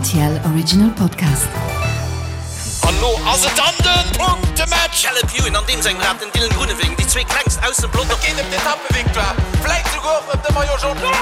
RTL Original Podcast. An lo ass et dann den Punktematch! Caleb Ewan an deem sengem Rad, den Dylan Groenewegen, déi zwee klengst aus dem Pelotong. Et geet ëm d'Etappevictoire, vläit souguer och ëm de Maillot Jaune.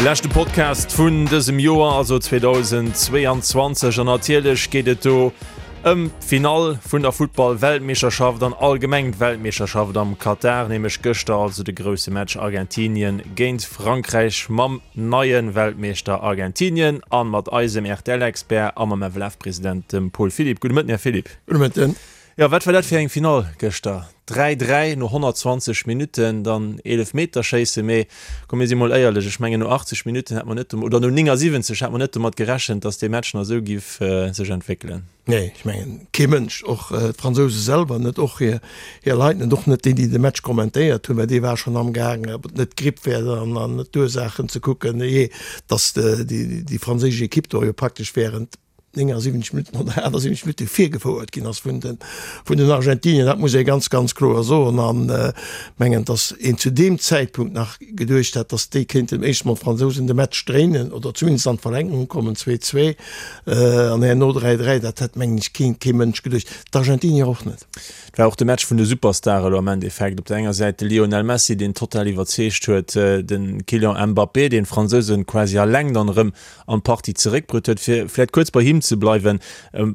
Leschte Podcast vun dësem Joer, also 2022, an natierlech geet et do Ëm d'Finall vun der Futtball-Weltmeeschterschaft an allgemeng d'Weltmeeschterschaft am Katar, nämlech gëschter also de grousse Match Argentinien géint Frankräich mam neie Weltmeeschter Argentinien a mat eisem RTL-Expert a mam FLF-President, dem Paul Philipp. Gudde Mëtten, Här Philipp. Gudde Mëtten. Jo, wat war dat fir eng Finall gëschter? 3, 3 no 120 Minutten, dann Eelefmeterschéisse. Mee komm, mir si mol éierlech, ech mengen no 80 Minutten hätt mer net, oder no 79 hätt mer net domat gerechent, datt dee Match nach esou giff sech entwéckelen. Nee, ech mengen kee Mënsch, och d'Fransouse selwer net, och hir Leit net, och net déi, déi de Match kommentéiert hunn, well dee war schonn amgaang, ob et net d'Gripp wär an net d'Ursaachen ze kucken, jee, datt déi franséisch Ekipp do jo praktesch wärend 79 Minutten oder 78 Minutte virgefouert ginn ass vun den, vun den Argentinier. Dat muss ee ganz, ganz kloer soen. An mengen, datt een zu deem Zäitpunkt nach geduecht hat, datt déi kéinten éischt mol d'Fransousen de Match dréinen oder zumindest an d'Verlängerung kommen, 2, 2 an herno 3, 3. Dat hätt, mengen ech, keen, kee Mënsch geduecht, d'Argentinier och net. Et war och de Match vun de Superstare elo am Endeffekt. Op der enger Säit de Lionel Messi, deen total iwwerzeegt huet, de Kylian Mbappé, deen d'Fransousen quasi alleng dann erëm an d'Partie zeréckbruet huet. Fir vläit kuerz bei him ze bleiwen,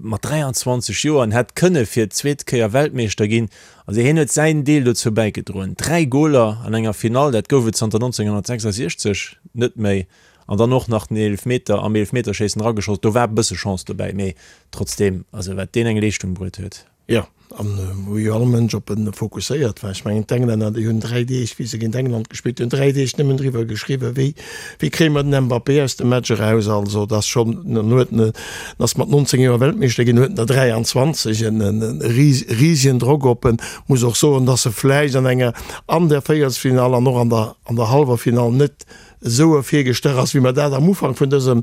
mat 23 Joer, en hätt kënne fir d'zweet Kéier Weltmeeschter ginn. Also hien huet säin Deel dozou bäigedroen. 3 Goler an enger Finall, dat gouf et zanter 1966 net méi. An dann och nach den Eelefmeter am Eelefmeterschéissen erageschoss. Do war e bësse Chance dobäi, mee trotzdeem, also wat deen eng Leeschtung bruet huet. Jo, an wou jo all Mënsch op en fokusséiert war. Ech mengen, d'Englänner, déi hunn 3 Deeg, wéi se géint England gespillt hunn, 3 Deeg nëmmen driwwer geschriwwen, wéi, wéi kréie mer den Mbappé aus dem Match eraus. Also, dat ass schonn, en huet en, en ass mat 19 Joer Weltmeeschter ginn, huet en der 23, en risegen Drock op en. Muss och soen, dass e vläicht an enger, an der Véierelsfinall an och an der, an der hallwer Finall net esou ervirgestach ass, wéi mer dat am Ufank vun dësem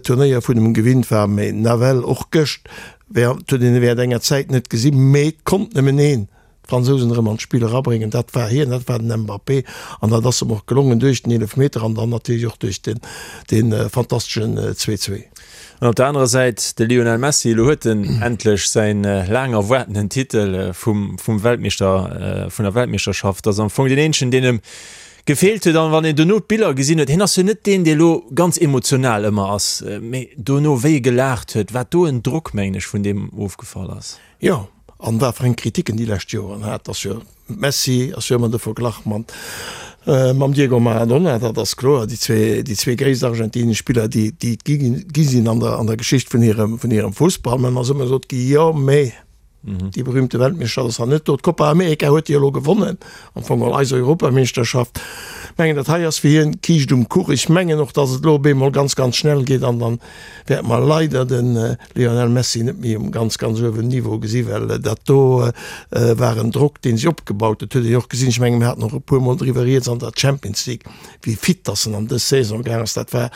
Turnéier vun em gewinnt waren. Mee nawell och gëscht Während huet een e während enger Zäit net gesinn, mee et konnt nëmmen een d'Fransousen erëm an d'Spill erabréngen, dat war hien, dat war den Mbappé. An dat ass em och gelongen duerch den Eelefmeter an dann natierlech och duerch den dee fantasteschen Zwee-Zwee. An op der anerer Säit de Lionel Messi, elo huet en endlech säin laang erwaartenen Titel vum vum Weltmeeschter, vun der Weltmeeschterschaft. Ass am Fong deen eenzegen, deen em Gefeelt huet. An wann een dono d'Biller gesinn huet, hien ass jo net deen, dee lo ganz emotional ëmmer ass, mee dono wéi e gelaacht huet, wat do en Drock, mengen ech, vun deem ofgefall ass. Jo, an wat fir eng Kritiken déi lescht Joren hat, ass jo Messi ass jo ëmmer de Verglach mat mam Diego Maradona, dat ass kloer, déi zwee, déi zwee gréisst argentinesch Spiller, déi déi et gi gi sinn an der an der Geschicht vun hirem vun hirem Fussball. Mä en ass ëmmer gesot gi, jo, mee Déi berühmte Weltmeeschterschaft ass nach net do. D'Copa America huet hie elo gewonnen, am Fong geholl eis Europameeschterschaft. Ech mengen, dat hei ass fir hien d'Kiischt um Kuch. Ech mengen och, datt et elo op eemol ganz, ganz schnell geet an dann wäerte mer leider de Lionel Messi net méi um ganz, ganz uewen Niveau gesi well dat do war en Drock, dee sech opgebaut huet. Huet een jo och gesinn, ech mengen, mir haten och e puermol driwwer rieds an der Champions League, wéi fit datt en an dës Saison gaang ass. Dat war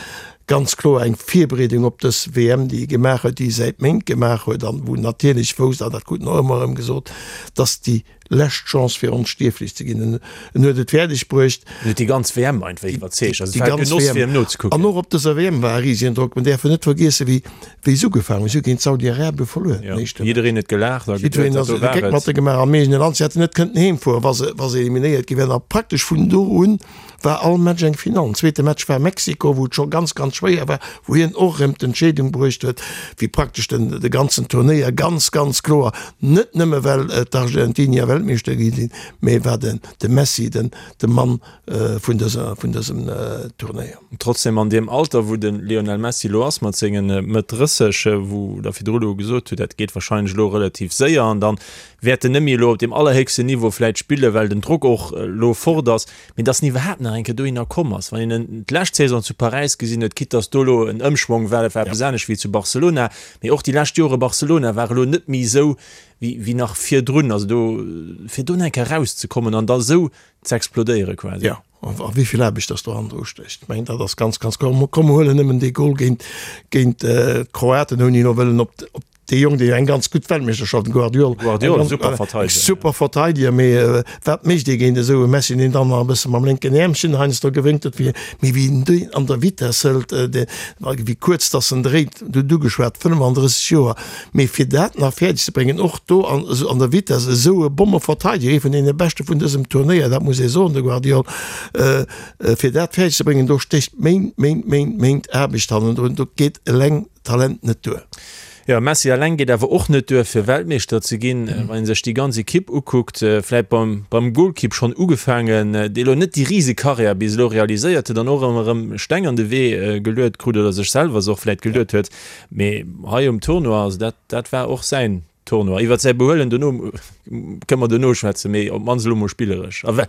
Ganz kloer eng Virbereedung op dës WM, déi e gemaach huet, déi e säit Méint gemaach huet an wou en natierlech wousst, an dat krut en och ëmmer erëm gesot, dass déi lescht Chance fir onstierflech ze ginn. En en huet et fäerdeg bruecht. En huet déi ganz WM einfach iwwerzeegt. Also et war e Genoss fir em nozekucken. An och op dëser WM war e risegen Drock. Mir däerfen net vergiessen, wéi wéi se ugefaangen hunn. Si hu géint Saudi-Arabie verluer den éischte Match. Jiddereen huet gelaacht a geduet, dat do war et. Jiddereen ass de Géck mat e gemaach am eegene Land. Si hätten net kënnten heemfueren, wa se wa se eliminéiert gi wären. A praktesch vun do un war all Match eng Finall. Den zweete Match war Mexiko, wou et scho ganz, ganz schwéier war, wou hien och erëm d'Entscheedung bruecht huet, wéi praktesch den de ganzen Turnéier ganz, ganz kloer, net nëmme well d'Argentinier Weltmeeschter gi sinn, mee war den de Messi den de Mann vun dëser vun dësem Turnéier. Trotzdem an deem Alter, wou de Lionel Messi elo ass mat senge Mëtt 30, wou Der virdru elo gesot hutt, dat geet wahrscheinlech elo relativ séier an dann wäert en net méi elo op deem allerhéchsten Niveau vläit spillen, well den Drock och elo fort ass, mee dass en iwwerhaapt nach eng Kéier dohinner komm ass. Wann een en d'lescht Saison zu Paräis gesinn huet, quitte dass do elo en Ëmschwong war, dat war eppes anescht wéi zu Barcelona, mee och déi lescht Jore Barcelona war elo net méi esou wéi wéi nach virdrun. Also do, fir do nach eng Kéier erauszekommen an da esou ze explodéiere quasi. Jo, a wéi vill Aarbecht dass do hannendru stécht, ech mengen dat ass ganz, ganz kloer. Komm mer huelen nëmmen dee Gol géint géint d'Kroaten, ouni elo wëllen op op. Dee Jong, dee jo eng ganz gutt Weltmeeschterschaft, den Gvardiol, Gvardiol, eng super Verteidiger, super Verteidiger, mee wat mécht ee géint esou e Messi, deen dann nach e bësse mam lénken Äermchen heiansdo gewénkt huet, wéi, mee wéi en deen an der Vitess hëlt, dee, wéi kuerz dass en dréit, du hutt ugeschwat, 35 Joer, mee fir dat nach fäerdeg ze bréngen, och do an, an der Vitess esou e Bommeverteidiger, ee vun deene beschte vun dësem Turnéier, dat muss ee soen, de Gvardiol, fir dat fäerdeg ze bréngen, do stécht Méint, Méint, Méint, Méint Aarbecht hannendrun, do geet eleng Talent net duer. Jo, Messi eleng geet awer och net duer fir Weltmeeschter ze ginn. Wann ee sech déi ganz Ekipp ukuckt, vläit beim beim Golkipp schonn ugefaangen, dee elo net déi rise Karriär bis elo realiséiert huet an och ëmmer erëm Steng an de Wee geluet krut oder sech selwer se och vläit geluet huet. Mee hei um Tournoi, also dat dat war och säin Tournoi. Iwwert säi Behuelen dono kënne mer dono schwätzen, mee op d'mannst elo mol spilleresch. A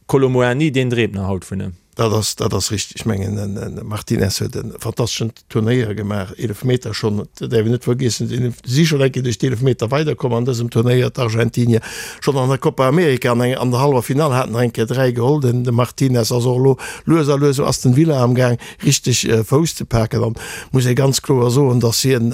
Kolo Muani, deen dreemt nach haut vun em. Dat ass, dat ass richteg. Ech mengen, den Martinez huet e fantasteschen Turnéier gemaach, Eelefmeter schonn, dat däerf een net vergiessen. Si si schonn eng Kéier duerch d'Eelefmeter weiderkomm an dësem Turnéier, d'Argentinier. Schonn an der Copa America an an der hallwer Finall haten nach eng Kéier 3 geholl. Den de Martinez ass och elo lues a lues esou Aston Villa amgaang richteg Fouss ze paken an muss ee ganz kloer soen, datt hien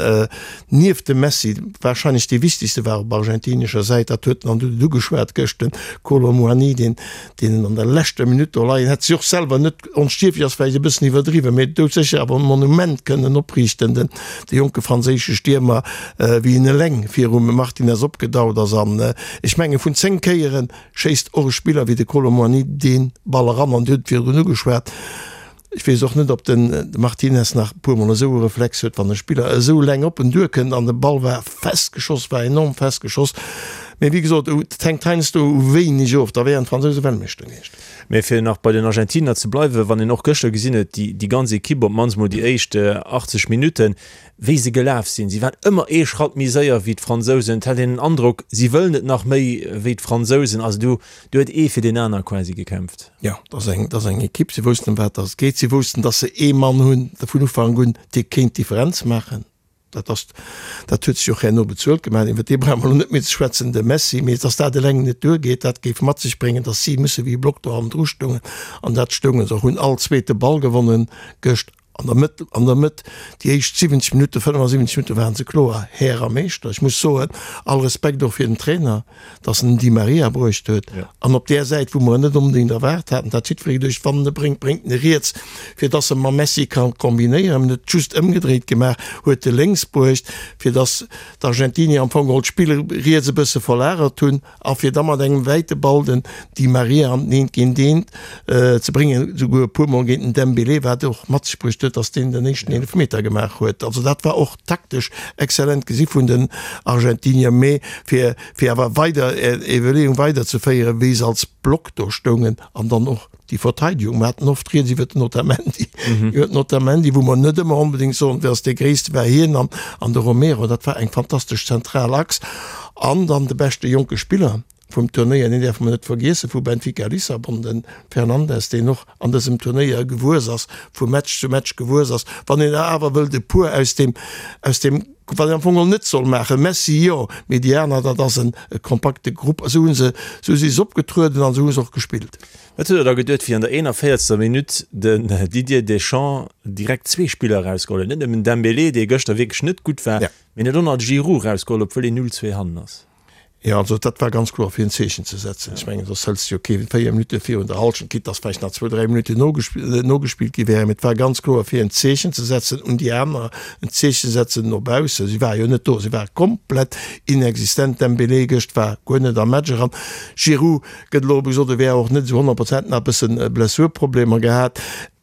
nieft dem Messi warscheinlech dee wichtegste war op argentinescher Säit. Dat huet en an du huet et ugeschwat gëscht, den Kolo Muani, deen deen en an der leschter Minutt do leien hätt. Si och selwer net onstierflech ass vläicht e bëssen iwwerdriwwen, mee doudsécher awer e Monument kënnen opriichten, den de jonke franséische Stiermer, wéi en eleng virum Martinez opgedaut ass. An ech menge vun 10 Kéiere schéisst och e Spiller wéi de Kolo Muani dee Ball eran. An Dir hutt et virdrun ugeschwat, Ech weess och net, ob den Martinez nach e puer Mol esou e Reflex huet, wann e Spiller esou eleng op en duerkënnt an de Ball war fest geschoss, war enorm fest geschoss. Mee wéi gesot, et hänkt heiansdo u wéineg of, da wären d'Fransouse Weltmeeschter gewiescht. Mee fir nach bei den Argentiner ze bleiwen, wann een och gëschter gesinn huet, déi, déi ganz Ekipp, op d'mannst mol déi éischt 80 Minutten, wéi se gelaf sinn, si waren ëmmer ee Schratt méi séier wéi d'Fransousen. Et hat een den Androck, si wëllen et nach méi wéi d'Fransousen. Also do, do huet ee fir deen aner quasi gekämpft. Jo, dat ass eng, dat ass eng Ekipp. Si woussten, ëm wat dass et geet. Si woussten, dass se ee Mann hunn, vun Ufank un, dee kéint d'Differenz maachen. Dat ass, dat huet sech och herno bezuelt gemaach. Iwwer dee brauche mer elo net méi ze schwätzen, de Messi. Mee dass dat eleng net duergeet, dat géif mat sech bréngen, dass si musse wéi e Block do hannendru stoungen. An dat stounge se och, hunn all zweete Ball gewonnen gëscht. An der Mëtt, an der Mëtt, déi éischt 70 Minutten, 75 Minutten waren se kloer Här a Meeschter. Ech muss soen, all Respekt och fir den Trainer, dass en den Di Maria bruecht huet an op där Säit, wou mer en net onbedéngt erwaart haten. Dat jiddweree geduecht, wann en e bréngt, bréngt en e riets, fir dass e mam Messi ka kombinéieren. En huet just ëmgedréit gemaach, huet e lénks bruecht, fir dass d'Argentinier am Fong geholl d'Spill riets e bësse verlagert hunn. A fir da mat engem wäite Ball den Di Maria an den Eent géint Eent ze bréngen, esouguer e puer Mol géint den Dembélé, wat och mat sech bruecht huet, datt deen den éischten Eelefmeter gemaach huet. Also dat war och taktesch exzellent gesi vun den Argentinier. Mee fir fir awer weider är Iwwerleeung weiderzeféieren, wéi se als Block do stoungen an dann och déi Verteidigung, mer haten oft rieds iwwer den Otamendi, iwwer den Otamendi, wou mer net ëmmer onbedéngt soen, wee ass dee Gréisste, war hien an an de Romero, dat war eng fantastesch zentral Achs. An dann de beschte jonke Spiller vum Turnéier, deen däerfe mer net vergiessen, vu Benfica Lissabon, de Fernandes, deen och an dësem Turnéier gewuess ass, vu Match zu Match gewuess ass. Wann een der awer wëllt e puer aus deem, aus deem, wat een am Fong geholl net soll maachen, Messi jo, mee déi aner, dat ass en kompakte Grupp. Esou hu se, esou si se opgetrueden an esou hu se och gespillt. Wat huet der da geduet, wéi an der 41. Minutt den Didier Deschamps direkt zwee Spiller erausgeholl huet? Net nëmmen Dembélé, dee gëschter wierklech net gutt war, mee en huet och nach de Giroud erausgeholl, obwuel een 0, 2 hannen ass. Jo, also dat war ganz kloer fir en Zeechen ze setzen. Ech mengen, soss hëls de jo kee 4 Minutte virun der Hallschent, quitte dass vläicht nach zwou, dräi Minutten nogespillt gi wären. Mee et war ganz kloer fir en Zeechen ze setzen un déi aner, en Zeechen setzen no baussen. Si ware jo net do, si ware komplett inexistent. Dembélé gëscht war guer net am Match eran. Giroud Gëtt elo gesot, e wär och net esou 100 Prozent, nach e bëssen Blessurproblemer gehat.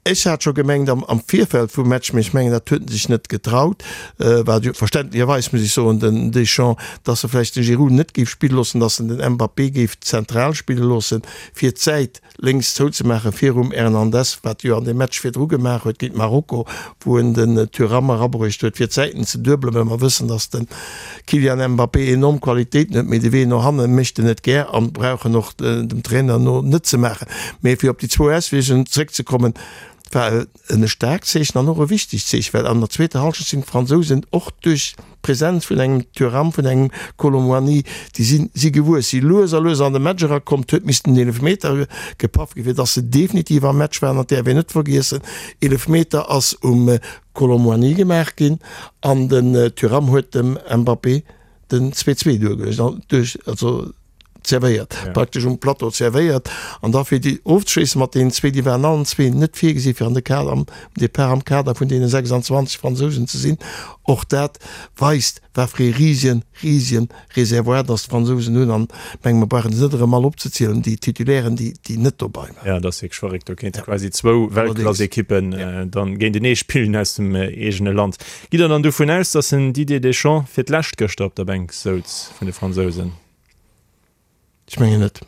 Ech hat scho gemengt am am Virfeld vum Match, mee ech mengen, dat huet en sech net getraut, wat jo verständlecherweis, muss ech soen, den Deschamps, dass e vläicht de Giroud net géif spille loossen, dass en den Mbappé géif zentral spille loossen, fir d'Säit lénks zouzemaache virum Hernandez, wat jo an deem Match virdru gemaach huet géint Marokko, wou en den Thuram erabruecht huet, fir d'Säiten ze duebelen, well mer wëssen, datt de Kylian Mbappé enorm Qualitéiten huet, mee de Wee no hanne mécht en net gär an brauch en och dem Trainer no net ze maachen. Mee fir op déi zwou Auswierkungen zréckzekommen, War e staarkt Zeechen an och e wichtegt Zeechen, well an der zweeter Hallschent sinn d'Fransousen och duerch d'Presenz vun engem Thuram, vun engem Kolo Muani, déi si si gewuess, si lues a lues an de Match erakomm. Et huet missten en Eelefmeter gepaff ginn, fir datt se definitiv am Match waren. An et däerf een net vergiessen, Eelefmeter ass um Kolo Muani gemaach ginn an den Thuram huet dem Mbappé den 2, 2 duergeluecht, duerch, also zerwéiert, ja. praktesch um Plateau zerwéiert. An da fir déi ofzeschléissen mat deenen zwee, déi waren allen zwee net virgesi fir an de Kader, am Depart am Kader vun deene 26 Fransousen ze sinn. Och dat weist, wat fir ee risien, risien Reservoir dass d'Fransousen hunn. An menge mer brauchen se net erëm all opzezielen, déi Titulairen, déi, déi net dobei waren. Ja, dat ass wierklech verréckt. Do kéinte quasi zwou Weltklassekippen dann géintenee spillen aus dem eegene Land. Gitt Der dann dovun aus, dass den Didier Deschamps fir d'lescht gëschter op der Bänk souz vun de Fransousen? Ech mengen net.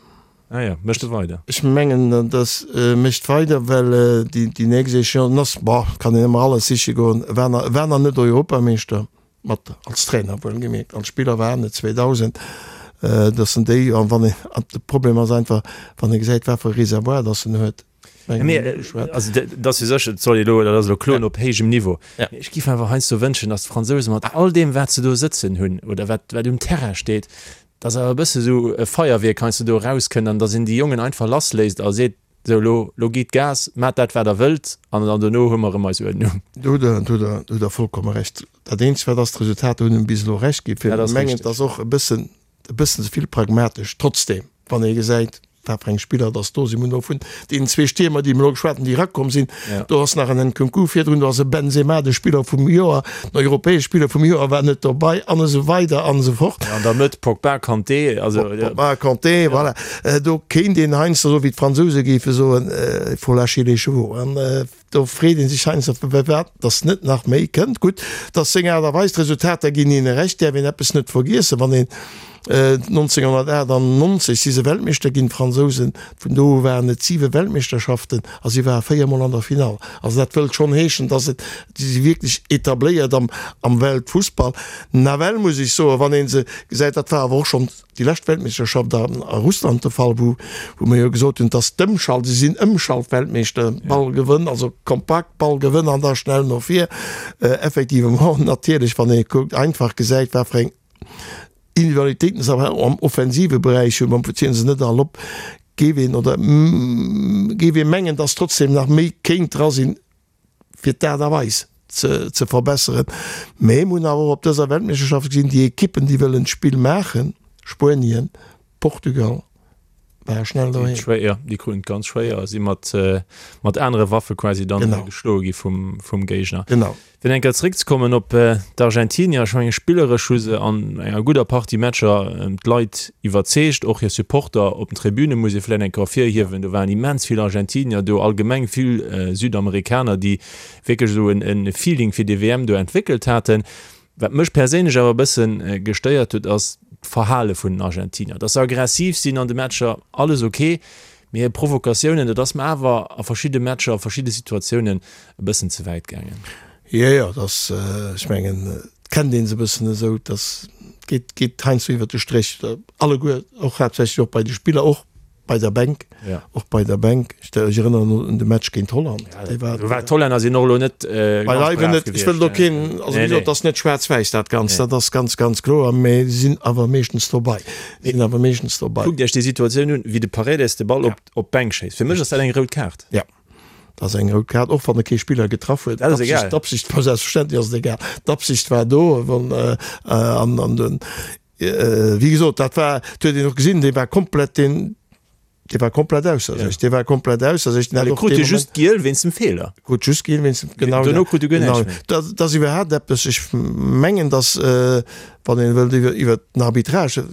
Ah ja, mécht e weider? Ech mengen, dass e mécht weider, well déi nächst Échéancen ass, bon, kann een ëmmer alles siche goen, e war nach, e war nach net Europameeschter mat, als Trainer wuelgemierkt, als Spiller war en et 2000, dass en déi, an wann een, an de Problem ass einfach, wann ee gesäit, wat fir e Reservoir dass en huet. Also dat ass jo sécher, et soll ee elo, dat ass elo Kloen op héijem Niveau. Mee ech géif awer heiansdo wënschen, datt d'Fransousen mat all deem wat se do sëtzen hunn oder wat wat um Terrain steet, datt awer e bësse sou e Feierwierk heiansdo do erauskënnt an datt een déi Jongen einfach lassléisst a seet, sou elo, elo gitt Gas, maacht dat wat der wëllt an dann dono hu mer erëm eis Uerdnung. Do hutt Der, do hutt Der vollkomme Recht. Dat eenzegt wat ass, d'Resultater hunn bis elo Recht ginn. Fir mengen, et ass och e bëssen e bëssen ze vill pragmatesch. Trotzdem, wann ee gesäit, wat fir eng Spiller dass do sinn, mir hunn elo vun deenen zwee Stiermer, déi mir elo geschwat hunn, déi erakomm sinn, do ass nach en Nkunku virdrun, do ass e Benzema, de Spiller vum Joer, den europäesche Spiller vum Joer war net dobei an esou weider an esou fort. An der Mëtt Pogba, Kanté, also. Pogba, Kanté, voilà. Do kéint een heiansdo, esou wéi d'Fransouse géife soen, il faut lâcher les chevaux. An Do freet ee sech heiansdo, firwat datt net nach méi kënnt. Gutt, datt seng Aart a Weis, d'Resultater ginn hinne Recht, däerf een eppes net vergiessen, wann een 1998 si se Weltmeeschter ginn, d'Fransousen, vun do u waren et siwe Weltmeeschterschaften a si ware véiermol an der Finall. Also dat wëllt schonn heeschen, datt et, si si wierklech etabléiert am am Weltfussball. Nawell muss ech soen, wann ee se gesäit, dat war awer och schonn, déi lescht Weltmeeschterschaft a Russland de Fall, wou wou mir jo gesot hunn, dass d'Ëmschalt, si sinn Ëmschaltweltmeeschter, Ball gewënn, also kompakt Ball gewënn an da schnell no vir. Effectivement, natierlech, wann ee kuckt, einfach gesäit, wat fir eng Individualitéiten se awer am offensive Beräich hunn, bon, zielen se net all op, géif een oder géif ee mengen, dass trotzdem nach méi kéint dra sinn, fir d'Aart a Weis ze verbesseren. Mee mir hunn awer och op dëser Weltmeeschterschaft gesinn, déi Ekippen, déi wëllen d'Spill maachen, Spuenien, Portugal, ware schnell doheem. Jo, déi kruten et ganz schwéier a si mat anere Waffe quasi dann geschloe gi vum Géigner. Genau. Fir eng Kéier zeréckzekommen op d'Argentinier, ech mengen spilleresch hu se an enger gudder Partie Matcher d'Leit iwwerzeegt, och hir Supporter op den Tribüne muss ee vläicht eng Kéier ervirhiewen. Do waren immens vill Argentinier do, allgemeng vill Südamerikaner, déi wierklech esou e Feeling fir déi WM do entwéckelt haten. Wat mech perséinlech awer e bësse gestéiert huet, ass d'Verhale vun den Argentinier. Datt se aggressiv sinn an de Matcher, alles ok, Mee hir Provokatiounen, dat ass mer awer a verschidde Matcher, a verschidde Situatiounen e bëssen ze wäit gaangen. Jo, jo, dat ass, ech mengen, et kennt ee se e bëssen esou, dass geet, geet heiansdo iwwert de Stréch, alleguer, och haaptsächlech och bei de Spiller, och bei der Bänk, och bei der Bänk. Ech erënneren un de Match géint Holland, dee war. Do war d'Hollänner sinn och elo net ganz brav gewiescht. Ech wëll do keen, also wéi gesot, et ass net schwaarz-wäiss dat Ganzt, dat ass ganz, ganz kloer, mee si sinn awer meeschtens dobei. Sinn awer meeschtens dobei. Kuckt Iech déi Situatioun un, wéi de Paredes de Ball op op d'Bänk schéisst. Fir mech ass dat eng rout Kaart. Ja, dat ass eng rout Kaart, och wann e kee Spiller getraff huet. Dat ass egal. D'Absicht war, selbstverständlech ass et egal. D'Absicht war do, wann an an den, wéi gesot, dat war, dat huet een och gesinn, dee war komplett, deen, dee war komplett ausser sech, dee war komplett ausser sech. Den hat och dee Moment. Just giel wéinst dem Feeler. Krut just giel wéinst dem, genau. Dono krut e guer näischt méi. Dat ass iwwerhaapt eppes, ech mengen, datt, wann een wëllt iwwer iwwer den Arbitrage,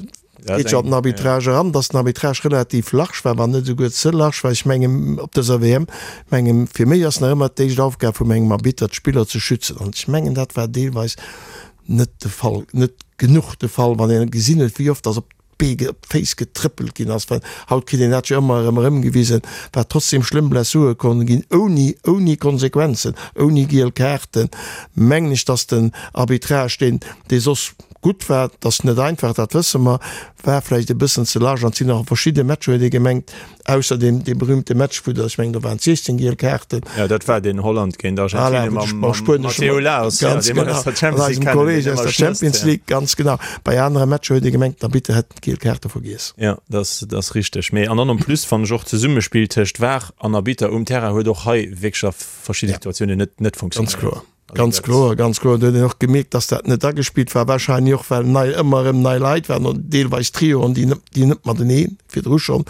geet jo an den Arbitrage eran, datt den Arbitrage relativ large war, wann net esouguer ze large war. Ech mengen op dëser WM, mengen fir méi ass nach ëmmer d'éischt Aufgab vum engem Arbitter d'Spiller ze schützen an ech mengen dat war deelweis net de Fall, net genuch de Fall, wann een gesinn huet wéi oft datt op d'Bee, op d'Féiss getrëppelt ginn ass, well haut kritt een dat jo ëmmer erëm erëmgewisen, wat trotzdem schlëmm Blessure konne ginn, ouni, ouni Konsequenzen, ouni giel Kaarten, mengen ech, dass den Arbitrage, deen, dee soss. gutt war, et ass net einfach, dat wësse mer, war vläicht e bëssen ze large an et sinn nach verschidde Matcher, huet ee gemengt, ausser deem dee berühmte Match, wou der, ech mengen, do waren et 16 giel Kaarten. Jo, dat war deen Holland géint Argentinien mam Matteo Lahoz, jo, dee mer aus der Champions League kennen, deen ëmmer schnësst, jo. Ganz genau. Bei anere Matcher huet ee gemengt, den Arbitter hätt d'giel Kaarte vergiess. Jo, dat ass richteg. Mee an dann en plus fannen ech och d'Zesummespill tëscht VAR an Arbitter um Terrain huet och hei wierklech a verschidde Situatiounen net net funktionéiert. Ganz kloer. Ganz kloer, ganz kloer. Do huet een och gemierkt, dass dat net agespillt war, wahrscheinlech och well nei, ëmmer erëm nei Leit waren oder deelweis Trioen, déi net, déi net matenee virdru schonn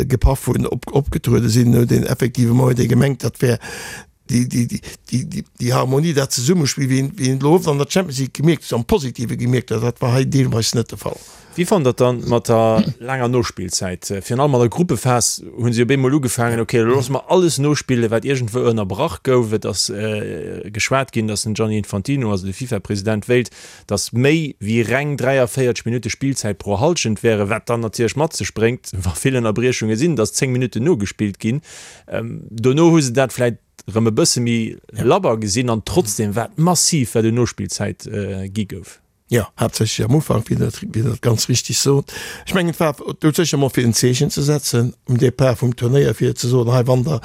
gepaff hunn, op, opgetruede sinn. Huet een effectivement huet ee gemengt, dat wär déi, déi, déi, déi, déi, déi Harmonie, dat Zesummespill, wéi een, wéi een elo oft an der Champions League gemierkt huet, am Positive gemierkt huet, dat war hei deelweis net de Fall. Wéi fannt der et dann mat der laanger Nospillzäit? Virun allem an der Gruppephas hu si op eemol ugefaangen, ok, elo loosse mer alles nospillen, wat iergendwou ënnerbrach gouf. Et ass geschwat ginn, datt den Gianni Infantino, also de FIFA-President, wéilt, datt méi wéi reng 43 Minutte Spillzäit pro Hallschent wären, wat dann natierlech mat sech bréngt, wa vill Ënnerbriechunge sinn, datt 10 Minutten nogespillt ginn. Dono hu se dat vläicht erëm e bësse méi labber gesinn an trotzdeem war et massiv, wat un Nospillzäit gi gouf. Jo, haaptsächlech am Ufank, wéi Der wéi Der et ganz richtig sot. Ech mengen, et war doudsécher emol fir en Zeechen ze setzen um Départ vum Turnéier, fir ze soen, hei, wann Der,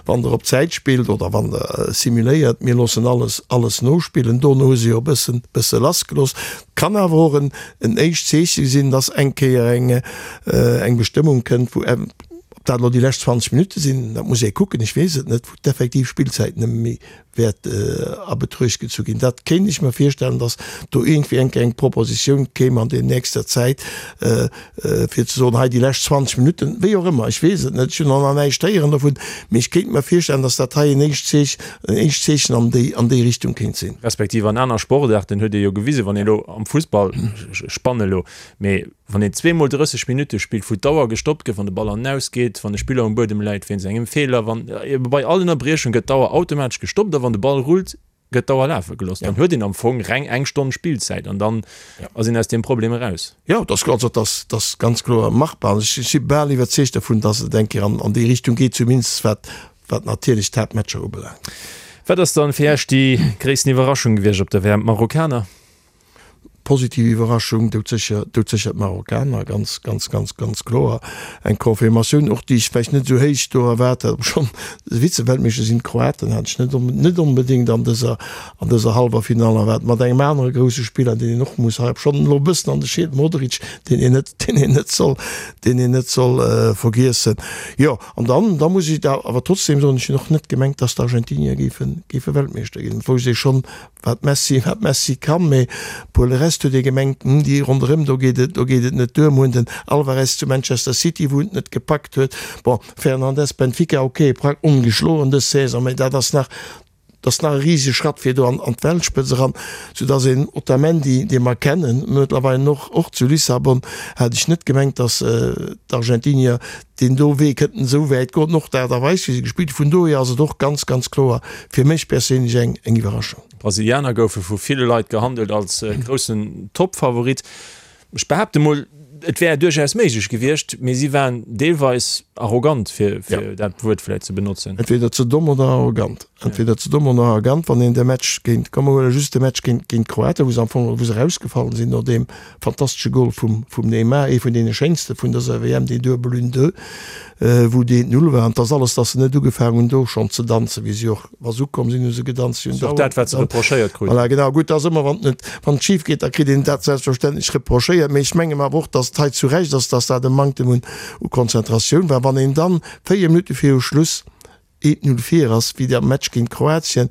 wann Der op Zäit spillt oder wann Der simuléiert, mir loossen alles, alles nospillen. Dono hu se jo e bëssen, bësse lassgelooss. Et kann awer och en, en éischt Zeeche sinn, dass eng Kéier eng, eng Bestëmmung kënnt, wou, ob dat elo déi lescht 20 Minutte sinn, dat muss ee kucken, ech weess et net, wou d'effektiv Spillzäit nëmme méi wäert a Betruecht gezu ginn. Dat kéint ech mer virstellen, datt do iergendwéi eng Kéier eng Propositioun kéim an der nächster Zäit, fir ze soen, hei déi lescht 20 Minutten, wéi och ëmmer, ech weess et net, ech hunn och nach näischt héieren dovun, mee ech kéint mer virstellen, datt dat hei en éischt Zeech, en éischt Zeechen an déi, an déi Richtung kéint sinn. Respektiv an aner Sportaarten huet ee jo gewisen, wann ee elo am Fussball, ech spanne elo, mee Wann een zweemol 30 Minutte spillt, wou d'Auer gestoppt gëtt, wann de Ball an den Aus geet, wann e Spiller um Buedem läit wéinst engem Feeler, wann bei all Ënnerbriechung gëtt d'Auer automatesch gestoppt a wann de Ball rullt, gëtt d'Auer lafe gelooss. Dann huet een am Fong reng eng Stonn Spillzäit an dann ass een aus deem Problem eraus. Jo, dat ass, also dat ass, dat ass ganz kloer machbar. An ech si bal iwwerzeegt dovun, datt et eng Kéier an, an déi Richtung geet, zumindest wat, wat natierlech d'Haaptmatcher ubelaangt. Wat ass dann fir Iech déi gréissten Iwwerraschung gewiescht op der WM? D'Marokkaner? Positiv Iwwerraschung, doudsécher, doudsécher d'Marokkaner, ganz, ganz, ganz, ganz kloer. Eng Confirmatioun och, déi ech vläicht net esou héich do erwaart hat, obschonn se Vize-Weltmeeschter sinn, d'Kroaten hat ech net, net onbedéngt an dëser, an dëser hallwer Finall erwaart, mat engem anere grousse Spiller, deen een och muss hei, obschonn elo e bëssen an de Schied, Modric, deen een net, deen een net soll, deen een net soll vergiessen. Jo, an dann, da muss ech awer trotzdem soen, ech hunn och net gemengt, dass d'Argentinier géifen, géife Weltmeeschter ginn. Et wousst ee schonn, Wat Messi, wat Messi kann, mee pour le reste huet ee gemengt, hm, déi ronderëm, do geet et, do geet et net duer. Mir hunn den Alvarez zu Manchester City, wou en et net gepackt huet. Bon, Fernandes, Benfica, ok, prak ongeschloen dës Saison, mee dat ass nach, dat ass nach e risege Schratt fir do an, an d'Weltspëtz eran, soudass een Otamendi, dee mer kennen mëttlerweil och, och zu Lissabon, hat ech net gemengt, dass d'Argentinier deen do Wee kënnten esou wäit goen, och d'Aart a Weis wéi se gespillt hunn. Vun dohier ass et och ganz, ganz kloer fir mech perséinlech eng eng Iwwerraschung. D'Brasilianer goufe vu ville Leit gehandelt als groussen Toppfavorit. Ech behaapte mol, et wär duerchaus méiglech gewiescht, mee si waren deelweis arrogant, fir dat Wuert vläicht ze benotzen. Entweder ze domm oder arrogant. Entweder ze domm oder arrogant, wann een de Match géint, komm mer huele just de Match géint géint d'Kroaten, wou se am Fong, wou se erausgefall sinn no deem fantastesche Gol vum vum Neymar, ee vun deene schéinste vun dëser WM, deen Duebel un deux, wou deen Null war. An et ass alles, datt se net ugefaangen hunn do schonn ze danzen, wéi si och, wa se ukomm sinn, hu se gedanzt, si hunn Ass och dat, wat se reprochéiert kruten. Voilà, genau. Gutt, ass ëmmer, wann et net, wann et schif geet, da kritt een dat selbstverständlech reprochéiert. Mee ech menge mer awer och, datt et hei zu Recht ass, datt dat e Manktem un u Konzentratioun war. Wann een dann 4 Minutte viru Schluss 1, 0 vir ass, wéi am Match géint Kroatien.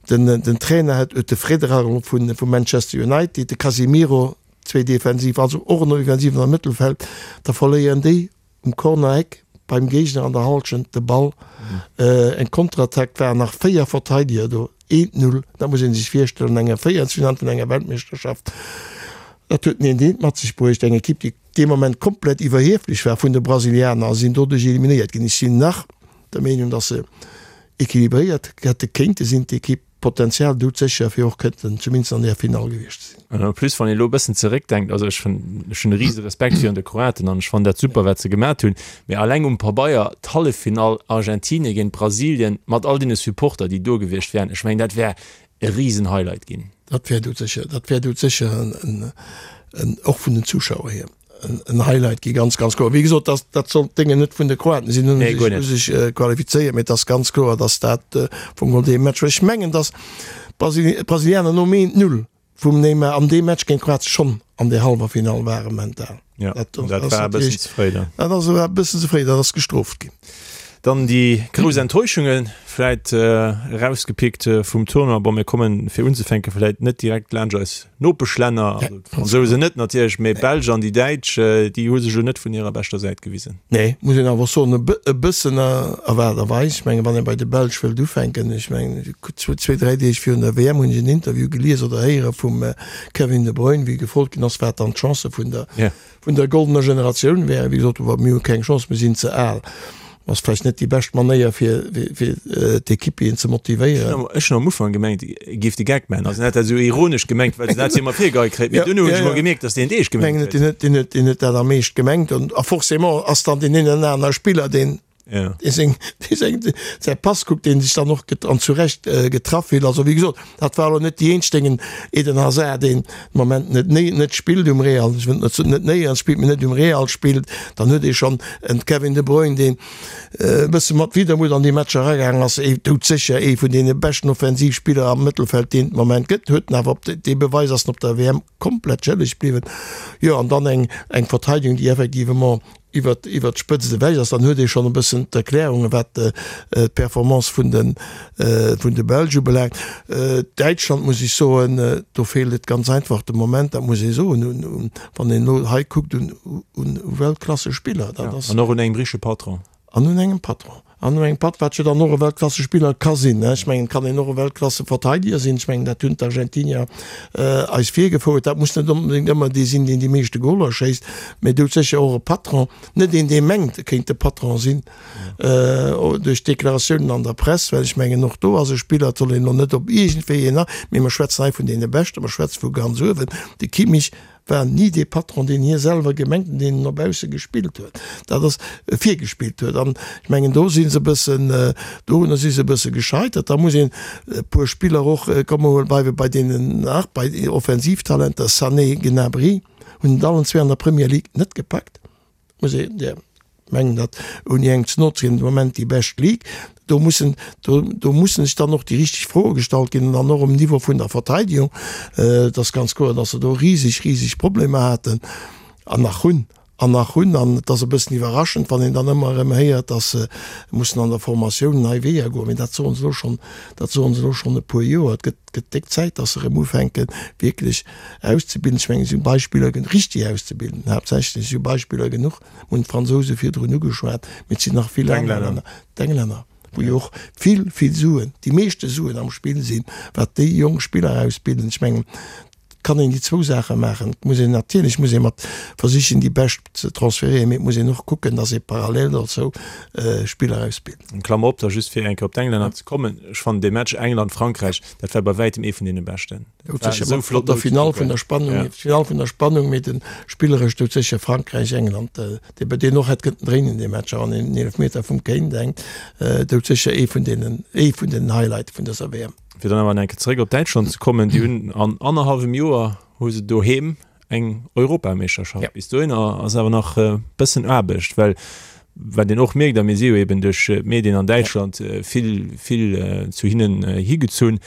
Den den Trainer hat huet de Frederer vu vu Manchester United, de Casemiro, zwee defensiv, also och en Offensiven am Mëttelfeld, da verléieren déi um Corner-Eck beim Géigner an der Hallschent de Ball. Eng Konterattack, waren nach 4 Verteideger do, 1, 0, dat muss ee sech virstellen an enger Véierelsfinall vun enger Weltmeeschterschaft. Dat huet en eent mat sech bruecht, eng Ekipp, déi dee Moment komplett iwwerhieflech war vun de Brasilianer a sinn doduerch eliminéiert ginn. Ech sinn nach der Meenung, dass se equilibréiert hätte kéinte sinn, d'Ekipp. Potenzial doudsécher fir och kënnten zumindest an där Finall gewiescht ze sinn. An en plus, wann een elo e bëssen zeréckdenkt, also ech hunn, ech hunn e rise Respekt virun de Kroaten an ech fannen dat super, wat se gemat hunn, mee alleng um Pabeier d'Halleffinall Argentinien géint Brasilien mat all deene Supporter, déi do gewiescht wären, ech mengen, dat wär e risen Highlight ginn. Dat wär doudsécher, dat wär doudsécher en, en, och vun den Zuschauer hier en Highlight gi, ganz, ganz kloer. Wéi gesot, dat, dat soll d'Déngen net vun de Kroaten sinn, hunn sech, hu sech qualifizéiert, mee et ass ganz kloer, datt dat vum Grond dee Match war. Ech mengen, datt d'Brasilianer nom 1, 0 vum Neymar an deem Match géint Kroatien schonn an der hallwer Finall ware mental. Ja, dat, dat war e bëssen ze fréi dann. Dat ass e bëssen ze fréi, dat ass gestrooft ginn. Dann déi grouss Enttäuschunge vläit erausgepickt vum Tournoi. Bon, mir kommen fir unzefänke vläit net direkt laanscht eis Nopeschlänner, also d'Fransousen net natierlech, mee d'Belsch an déi Däitsch, déi hu sech elo net vun hirer beschter Säit gewisen. Nee, muss een awer soen, e bëssen erwaarderweis. Ech mengen, wann ee bei de Belsch wëllt ufänken, ech mengen, zwee, dräi Deeg virun der WM hunn ech en Interview gelies oder héiere vum Kevin De Bruyne, wéi gefrot ginn ass, wat dann d'Chancë vun der, vun der goldener Generatioun wären. Wéi gesot, mir hu keng Chance, mir sinn ze al. Ass vläicht net déi bescht Manéier, fir, fir d'Equipieren ze motivéieren. Ech hunn am Ufank gemengt, e géif de Geck maachen. Also en hat dat esou ironesch gemengt, well en dat jo ëmmer virgeheit kréit. Mee duerno hunn ech emol gemierkt, datt deen et eescht gemengt huet. Ech mengen, deen huet dat am Eescht gemengt. A forcément ass dann deen een oder anere Spiller, deen Ja. Dee seng, dee seng, säi Pass kuckt, deen sech dann och get, an zu Recht äh, getraff fillt. Also wéi gesot, dat war elo net déi eenzeg Déngen, Eden Hazard, deen de Moment net néi, net spillt um Real, ech wëll net net néierens spillt, mee net um Real spillt. Dann huet ee schonn en Kevin De Bruyne, deen e bësse mat Widermut an déi Matcher eragaangen ass, ee doudsécher ee vun deene beschten Offensivspiller am Mëttelfeld, deen et de Moment gëtt, huet en awer op dee Beweis ass en op der WM komplett schëlleg bliwwen. Jo, an dann eng, eng Verteidigung, déi effectivement iwwert iwwert d'Spëtzt ewech ass, dann huet ee schonn e bëssen d'Erklärungen, wat d'Performance vun de vun de Belsch ubelaangt. Däitschland, muss ech soen, do feelt et ganz einfach de Moment, dat muss ee soen, un un wann een elo hei kuckt, un un Weltklassespiller. Dat ass. An och un engem richtege Patron. An un engem Patron. An un engem Patt, wat jo dann och e Weltklassespiller ka sinn. Ech mengen, et kann een och e Weltklasseverteideger sinn. Ech mengen, dat hunn d'Argentinier eis virgefouert. Dat muss net onbedéngt ëmmer dee sinn, deen déi meeschte Goler schéisst, mä doudsécher och e Patron. Net een, dee mengt, e kéint de Patron sinn duerch d'Deklaratiounen an der Press, well ech mengen, och do ass e Spiller, et soll een elo net op iergendwéi een, mee mer schwätzen hei vun deene Beschten, mer schwätze vu ganz uewen. De Kimmich war ni dee Patron, deen hie selwer gemengt an deen en no bausse gespillt huet, dat ass virgespillt huet. An ech mengen, do si se e bëssen, dorunner si se e bësse gescheitert. Da muss een e puer Spiller och, komme mer bleiwe bei deenen nach, bei Offensivtalenter, Sané, Gnabry hunn et allen zwee an der Premier League net gepackt. Muss een, jo, mengen dat ouni engem ze no ze ginn, de Moment déi bescht Ligue. Do mussen, do, do mussen sech dann och déi richteg Froe gestallt ginn an dann och um Niveau vun der Verteidigung. Et ass ganz kloer, datt se do riseg, riseg Problemer haten an nach hunn an nach hunn. An et ass e bëssen iwwerraschend, wann een dann ëmmer erëm héiert, datt se mussen an der Formatioun nei Weeër goen. Mee dat soen se elo schonn, dat soen se elo schonn e puer Joer. Et gëtt, gëtt déck Zäit, datt se erëm ufänken, wierklech Auszebilden. Ech mengen, et si Beispiller genuch, richtig auszebilden, haaptsächlech, et si Beispiller genuch, mir hunn d'Fransouse virdrun ugeschwat, mee et sinn nach vill aner Länner, d'Englänner, wou jo och vill, vill Suen, déi meeschte Suen am Spill sinn, wat déi jonk Spiller ausbilden. Ech mengen, et kann een déi zwou Saache maachen. Et muss een natierlech muss ee mat versichen, déi Bescht ze transférieren, mee et muss een och kucken, datt ee parallel dozou Spiller ausbilt. Eng Klammer op da just, fir eng Kéier op d'Englänner ze kommen, Ech fannen dee Match England-Frankräich, dat war bei wäitem ee vun deene beschten. Doudsécher mat der Finall vun der Spannung, ja. Finall vun der Spannung, mee den spilleresch doudsécher Frankräich, England, dee bei deen och hätt kënnten dréinen dee Match, an een Eelefmeter vum Kane denkt, doudsécher ee vun deenen, ee vun den Highlighte vun dëser WM. Fir dann awer nach eng Kéier zeréck op Däitschland ze kommen, déi hunn an annerhallwem Joer hu se doheem eng Europameeschterschaft. Ja. Bis dohinner ass awer nach e bëssen Aarbecht, well wat een och mierkt, a mir si jo eben duerch d'Medien an Däitschland ja. vill, vill zu hinnen higezunn,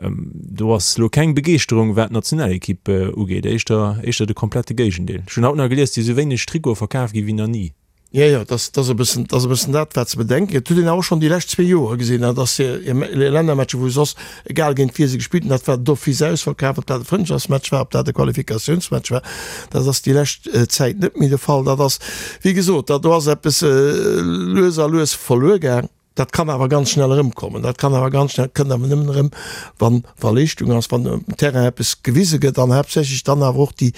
do ass lo keng Begeeschterung, wat d'Nationalekipp ugeet, éischter, éischter de komplette Géigendeel. Ech hunn haut nach gelies, et si sou wéineg Trikote verkaf gi wéi nach ni. Jo, jo, dat ass e bëssen, dat ass e bëssen dat, wat ze bedenken gëtt. Huet een awer och schonn déi lescht zwee Joer gesinn, dat ass hir Lännermatcher, wou soss, egal géint wie se gespillt hunn, dat war d'office ausverkaf, ob dat e Frëndschaftsmatch war, ob dat e Qualifikatiounsmatch war, dat ass déi lescht Zäit net méi de Fall. Dat ass, wéi gesot, dat do ass eppes lues a lues verluer gaang. Dat kann awer ganz schnell erëmkommen. Dat kann awer ganz schnell, kënnt awer nëmmen erëm, wann, wa Leeschtung ass, wann um Terrain eppes gewise gëtt an haaptsächlech dann awer och déi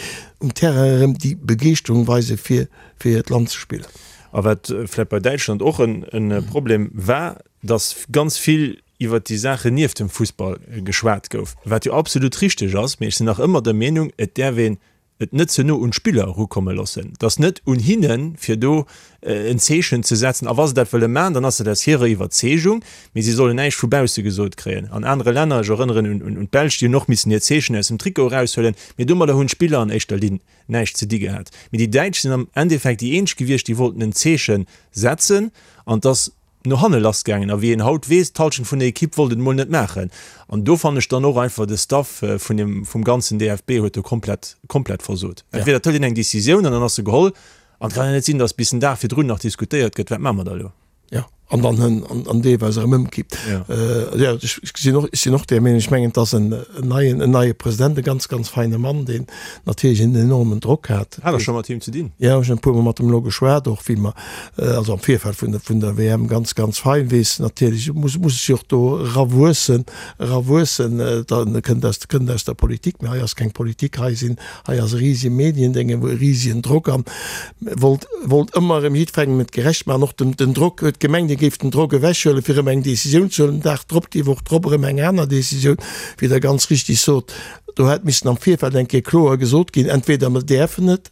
um Terrain erëm déi Begeeschterung weise fir, fir hiert Land ze spillen. A wat vläicht bei Däitschland och en Problem war, datt ganz vill iwwert déi Saachen nieft dem Fussball geschwat gouf, wat jo absolut richteg ass, mee ech sinn nach ëmmer der Meenung, et däerf een. et net ze no un d'Spiller erukomme loossen. Et ass net un hinnen, fir do en Zeechen ze setzen. A wa se dat wëlle maachen, dann ass dat aus hirer Iwwerzeegung, mee si sollen näischt vu bausse gesot kréien. An anere Länner, ech erënneren un d'Belsch, déi hunn och missen hiert Zeechen aus dem Trikot eraushuelen, mee domadder hunn d'Spiller an éischter Linn näischt ze di gehat. Mee déi Däitsch sinn am Endeffekt déi eenzeg gewiescht, déi wollten en Zeeche setzen an et ass no hanne lass gaangen. A wéi een haut weess, d'Halschent vun der Ekipp wollt et emol net maachen. An do fannen ech dann och einfach, de Staff vun dem, vum ganzen DFB huet do komplett, komplett versot. Entweder et hëlt een eng Decisioun an dann ass se geholl. An et kann jo net sinn, datt bis den Dag virdrun nach diskutéiert gëtt, wat maache mer da elo? Jo, an dann hënn an, an deelweis erëm ëmkippt. Jo. Jo, ech, ech sinn och, ech sinn och där Meenung. Ech mengen, et ass en neien, en neie President, e ganz, ganz feine Mann, deen natierlech en enormen Drock hat. Hat Der scho mat him ze dinn? Jo, ech hunn e puermol mat em elo geschwat, och wéi mer, also am Virfeld vun der, vun der WM, ganz, ganz fein, weess natierlech, muss, muss sech och do erawuessen, erawuessen, da kënnt aus, kënnt aus der Politik, mä hei ass keng Politik, hei sinn, hei ass e risege Mediendénge, e risegen Drock an wollt, wollt ëmmer erëm jiddwerengem et gerecht maachen, och den, den Drock, huet gemengt, e géif den Drock ewechhuelen, fir erëm eng Décisioun ze huelen, den Dag drop, déi Woch drop erëm eng aner Décisioun, wéi Der ganz richtig sot, do hätt missen am Virfeld eng Kéier kloer gesot ginn, entweder mer däerfen et,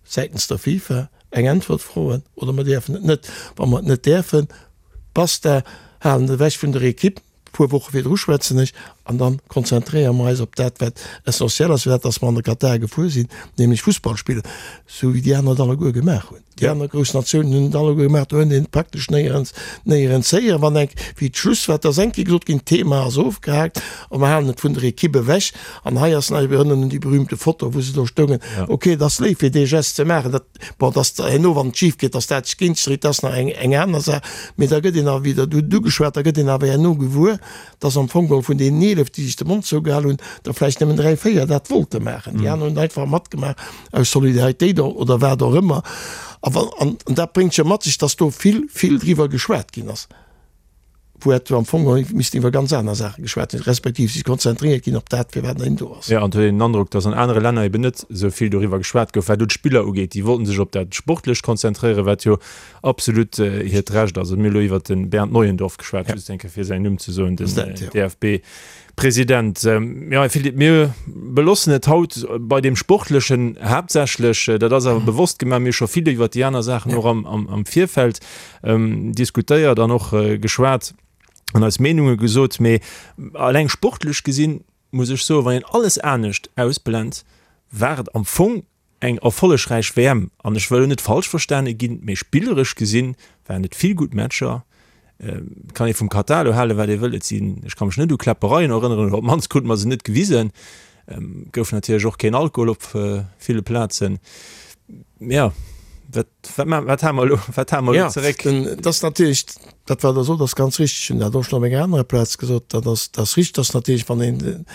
säitens der FIFA eng Äntwert froen oder mer däerfen et net. Wa mer et net däerfen, basta, halen et ewech vun der Equipe, puer Woche virdru schwätzen ech, an da konzentréiere mer eis op dat, wat essentiel ass, fir dat, dass mer an de Katar gefuer sinn, nämlech Fussball spillen, esou wéi déi aner et alleguer gemaach hunn. Déi aner grouss Natiounen hunn et alleguer gemaach, do huet een et praktesch néierens, néierens héieren. Wann eng, wéi d'Schluss war, et ass eng Kéier gesot ginn, d'Thema ass ofgehaakt a mer halen et vun der Equipe ewech. An hei ass nach, ech erënneren un déi berühmte Foto, wou se do stoungen. Ok, et ass léif fir dee Gest ze maachen, dat, bon, dass herno, wann et schif geet, dass dat sech géint dréit, dat ass nach eng, eng aner Saach. Mee da gëtt een awer wieder, du hutt et ugeschwat, da gëtt een awer herno gewuer, dass am Fong geholl vun deenen 11, déi sech de Mond zougehal hunn, der vläicht nëmmen 3, 4 dat wollte maachen. Déi aner hunn einfach matgemaach aus Solidaritéit oder wat och ëmmer. A wann, an dat bréngt jo mat sech, dass do vill, vill driwwer geschwat ginn ass, wou hätt am Fong geholl missten iwwer ganz aner Saache geschwat ginn, respektiv sech konzentréiert ginn op dat, firwat een do ass. Jo, an et huet een den Androck, dass an anere Länner eben net esou vill doriwwer geschwat gouf, wat elo d'Spiller ugeet. Déi wollten sech op dat Sportlecht konzentréieren, wat jo absolut hiert Recht ass. Mir hu elo iwwert de Bernd Neuendorf geschwat, just eng Kéier fir säin Numm ze soen, den DFB-President. Jo, Philippe, mir belossen et haut bei deem Sportlechen haaptsächlech. Dat ass awer bewosst gemaach. Mir hu scho vill iwwert déi aner Saachen och am Virfeld diskutéiert an och geschwat an eis Meenunge gesot. Mee eleng sportlech gesinn, muss ech soen, wann een alles anescht ausblent, war et am Fong Eng erfollegräich WM, an ech wëll net falsch verstane ginn, mee spilleresch gesinn waren et vill gutt Matcher. Et kann ee vum Katar elo halen, wat ee wëll, et sinn, ech ka mech net u Kläppereien erënneren, oder op d'mannst krute mer se net gewisen. Et gouf natierlech och keen Alkohol op ville Plazen. Jo, wat, wat, wat hale mer elo, wat hale mer elo zeréck? Jo, dat ass natierlech, dat wat Der sot ass ganz richteg. Ech hunn dat och schonn op enger anerer Plaz gesot, dat ass, dat ass richteg, dass natierlech, wann een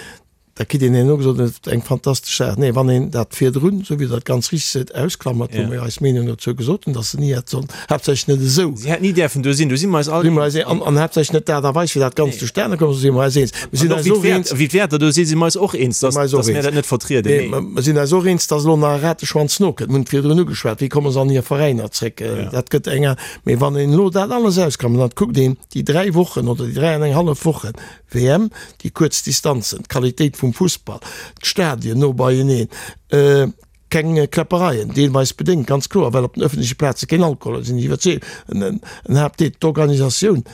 Da kritt een herno gesot, et ass eng fantastesch Saach. Nee, wann een dat virdrun, esou wéi Der et ganz richteg seet, ausklammert, wou mer jo eis Meenung dozou gesot hunn, datt se ni hätt sollen, haaptsächlech net esou. Si hätt ni däerfen do sinn, do si mer eis all eens. An, an haaptsächlech net d'Aart a Weis, wéi dat Ganzt zustane komm ass, do si mer eis eens. Mir sinn eis och eens. Wéi d'Wäerter do sinn, si mer eis och eens, datt, datt mir dat net vertrieden. Nee, mer sinn eis och eens, datt elo nach e Rateschwanz nokënnt. Mir hunn et virdrun ugeschwat, wéi komme se an hir Veräiner zréck? Dat gëtt eng. Mee wann een elo dat alles ausklammert an et kuckt een déi dräi Wochen oder déi dräi an eng hallef Wochen, WM, déi kuerz Distanzen, d'Qualitéit vum Fussball, d'Stadien no beieneen, keng Kläppereien, deelweis bedéngt, ganz kloer, well op den ëffentleche Plaze keen Alkohol ass, sinn ech iwwerzeegt, en Haaptdeel, d'Organisatioun,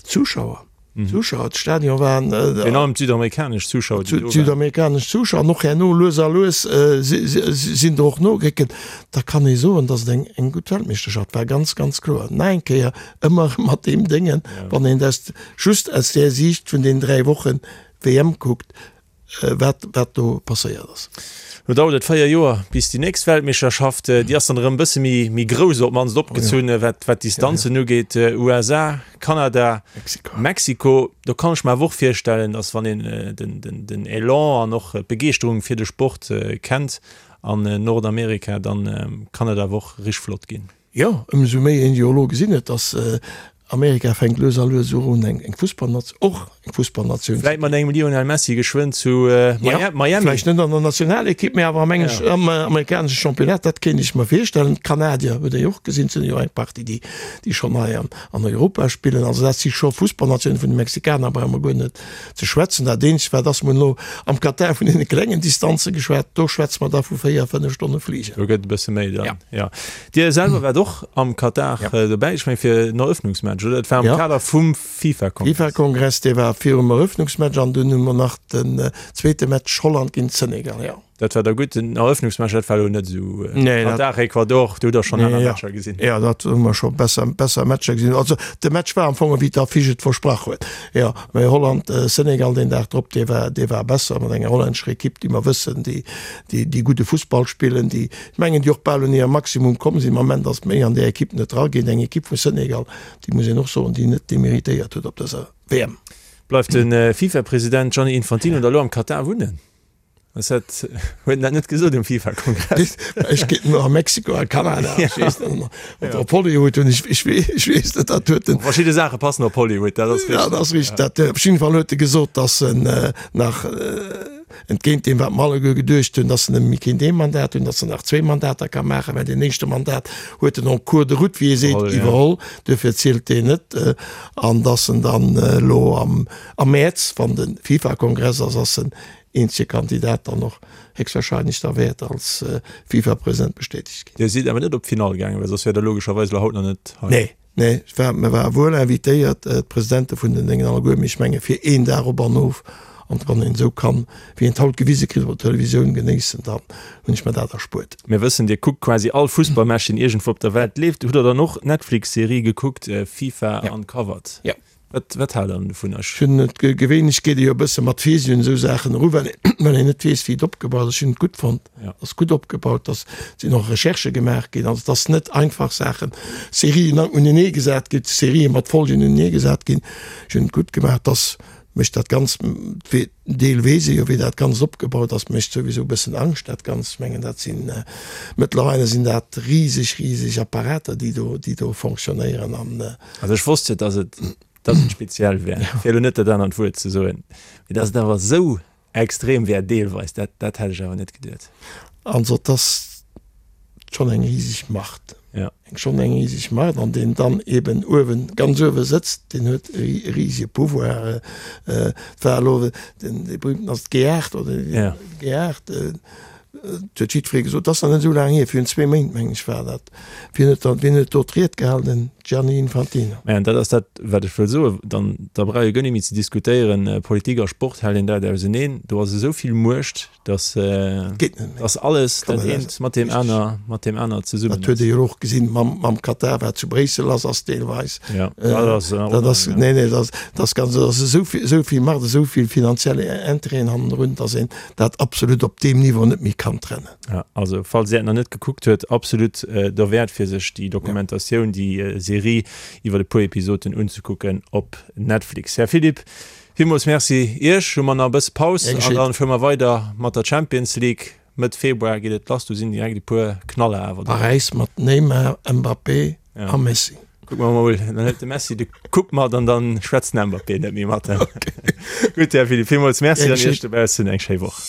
d'Zuschauer, d'Zuschauer, d'Stadion waren. Virun allem d'südamerikanesch Zuschauer, déi do waren. D'südamerikanesch Zuschauer an och herno lues a lues sinn der och nogeréckelt. Da kann ee soen, datt et eng gutt Weltmeeschterschaft war, ganz, ganz kloer. Nach eng Kéier, ëmmer mat deem Déngen, wann een dat just aus där Siicht vun deenen 3 Wochen WM kuckt, wat wat do passéiert ass. Lo dauert et 4 Joer bis déi nächst Weltmeeschterschaft, déi ass dann erëm e bësse méi méi grouss, op d'mannst opgezunn, wat wat d'Distanzen ugeet, USA, Kanada, Mexiko. Do kann ech mer awer och virstellen, datt wann een den den den Elan an och d'Begeeschterung fir de Sport kennt an Nordamerika, dann kann et awer och richteg flott ginn. Jo, ëmsou méi een jo elo gesinn huet, dass Amerika fänkt lues a lues un eng Fussballnatioun, och. Eng Fussballnatioun. Vläit mat engem Lionel Messi geschwënn zu Miami. Vläicht net an der Nationalekipp, mee awer am engesch, am amerikanesche Championnat, dat kéint ech mer virstellen. D'Kanadier huet ee jo och gesinn, et sinn jo eng Partie, déi, déi schonn hei an, an Europa spillen. Also dat si scho Fussballnatiounen. Vun de Mexikaner brauche mer guer net ze schwätzen. Dat eenzegt wat ass, mer hunn elo am Katar vun deene klengen Distanze geschwat, do schwätze mer da vu 4, 5 Stonne Fligen. Do gëtt e bësse méi dann, jo. Dir selwer waart och am Katar dobäi, ech meng fir den Eröffnungsmatch, oder? Dat war am Kader vum. FIFA-Kongress. FIFA-Kongress, dee war virum Eröffnungsmatch an dunn hu mer nach den zweete Match Holland géint Senegal, jo. Dat war da gutt. Den Eröffnungsmatch, dat war elo net esou. Nee, dat. Katar, Ecuador, do hutt der schonn aner Matcher gesinn. Jo, dat hu mer scho besser, besser Matcher gesinn. Also de Match war am Fong ewéi d'Affiche et versprach huet, jo. Mä Holland, Senegal deen Dag drop, dee war, dee war besser mat enger hollännescher Ekipp, déi mer wëssen, déi, déi, déi gudde Fussball spillen, déi, ech mengen, déi och bal un hir Maximum komm sinn. Am Ament ass méi an där Ekipp net dra géint eng Ekipp vu Senegal, déi muss een och soen, déi net deméritéiert huet op dëser WM. Bleift de FIFA-President Gianni Infantino da lo am Katar wunnen? Ass dat, huet en dat net gesot um FIFA-Kongress? Ech geet no a Mexiko a Kanada, ech weess net, oder op Hollywood hunn ech, ech weess net, dat huet en. Verschidde Saache passen op Hollywood, dat ass richteg. Ja, dat ass richteg. Dat, op jidde Fall huet e gesot, datt en nach, Entgéint deem, wat mer alleguer geduecht hunn, dass en nëmme méi kéint ee Mandat hunn, dass en nach zwéi Mandater ka maachen, mä deen éischte Mandat huet en en cours de route, wéi ee seet, iwwerholl, duerfir zielt deen net, an dass en dann elo am Mäerz, wann de FIFA-Kongress ass, ass en eenzege Kandidat dann och héchstwahrscheinlech da wäert als FIFA-President bestätegt ginn. Dir sidd awer net op d'Finall gaangen, well soss wäert Der logescherweis elo haut nach net hei. Nee. Nee, ech war, mir ware wuel invitéiert, d'Presidente vun den Déngen alleguer, mee ech menge fir een Dag op an of, an wann een esou kann, wéi een et haut gewise kritt op der Televisioun, genéissen, dann hunn ech mer dat erspuert. Mir wëssen, Dir kuckt quasi all Fussballmatch, deen iergendwou op der Welt leeft. Hutt Der dann och d'Netflix-Serie gekuckt, FIFA Uncovered? Jo. Wat, wat haalt der dovun? Ech hunn et, gewéinlech geet ee jo e bësse mat Virsi un esou Saachen eru, well een, well een net weess, wéi et opgebaut ass. Ech hunn et gutt fonnt, ass gutt opgebaut, dass sinn och Recherchë gemaach ginn, also dass net einfach Saachen, Serien unenee gesat ginn, Serië mat Folgen unenee gesat ginn. Ech hunn et gutt gemaach, dass mécht dat Ganzt, Deel weess ee jo wéi dat Ganzt opgebaut ass, mécht souwisou e bëssen Angscht dat Ganzt. Ech mengen dat sinn, mëttlerweile sinn dat riseg, riseg Apparater déi do, déi do fonctionnéieren an. Also ech wosst jo, dass et, dass et speziell wär, fir elo net dat anert Wuert ze soen, mee dass et awer esou extrem wär deelweis, dat, dat hätt ech awer net geduet. Also et ass schonn eng riseg Macht. Ja. Eng schonn eng riseg Macht an deen dann eben uewen, ganz uewe sëtzt, deen huet e risege Pouvoir. Et war elo den, dee berühmten ass d'G8 oder Ja. G8, et huet jiddweree gesot, dat ass nach net esou laang hier, virun zwee Méint meng ech war dat, wien huet dann, wien huet do d'Ried gehalen, den Gianni Infantino. Mä an dat ass dat, wat ech wëll soen, dann, da brauch ee guer net méi ze diskutéieren, Politik a Sport hält een dat auseneen, do ass esou vill Muecht, dass dass alles dat eent mat deem aner mat deem aner zesummen Dat huet ee jo och gesinn mam mam Katar, wat zu Bréissel ass, ass deelweis. Ja, dat ass dat ass nee nee dat ass ganz dat ass esou vill esou vill Macht, esou vill finanziell Intérêten hannendrun, dass een dat absolut op deem Niveau net méi kann trennen. Ja, also falls Dir et nach net gekuckt huet, absolut derwäert fir sech déi Dokumentatioun, déi Serie iwwer e puer Episoden unzekucken op Netflix. Här Philipp, Villmools Merci Iech. Hu mer nach e bësse Paus an dann fuere mer weider mat der Champions League. Mëtt Februar geet et lass, do sinn direkt e puer Knaller awer dobäi. Paräis mat Neymar, Mbappé a Messi. Kucke mer mol, dann hëlt de Messi de Coupe mat an dann schwätzt den Mbappé net méi mat em. Gutt Här Philipp, villmools Merci an Iech dobaussen eng schéi Woch.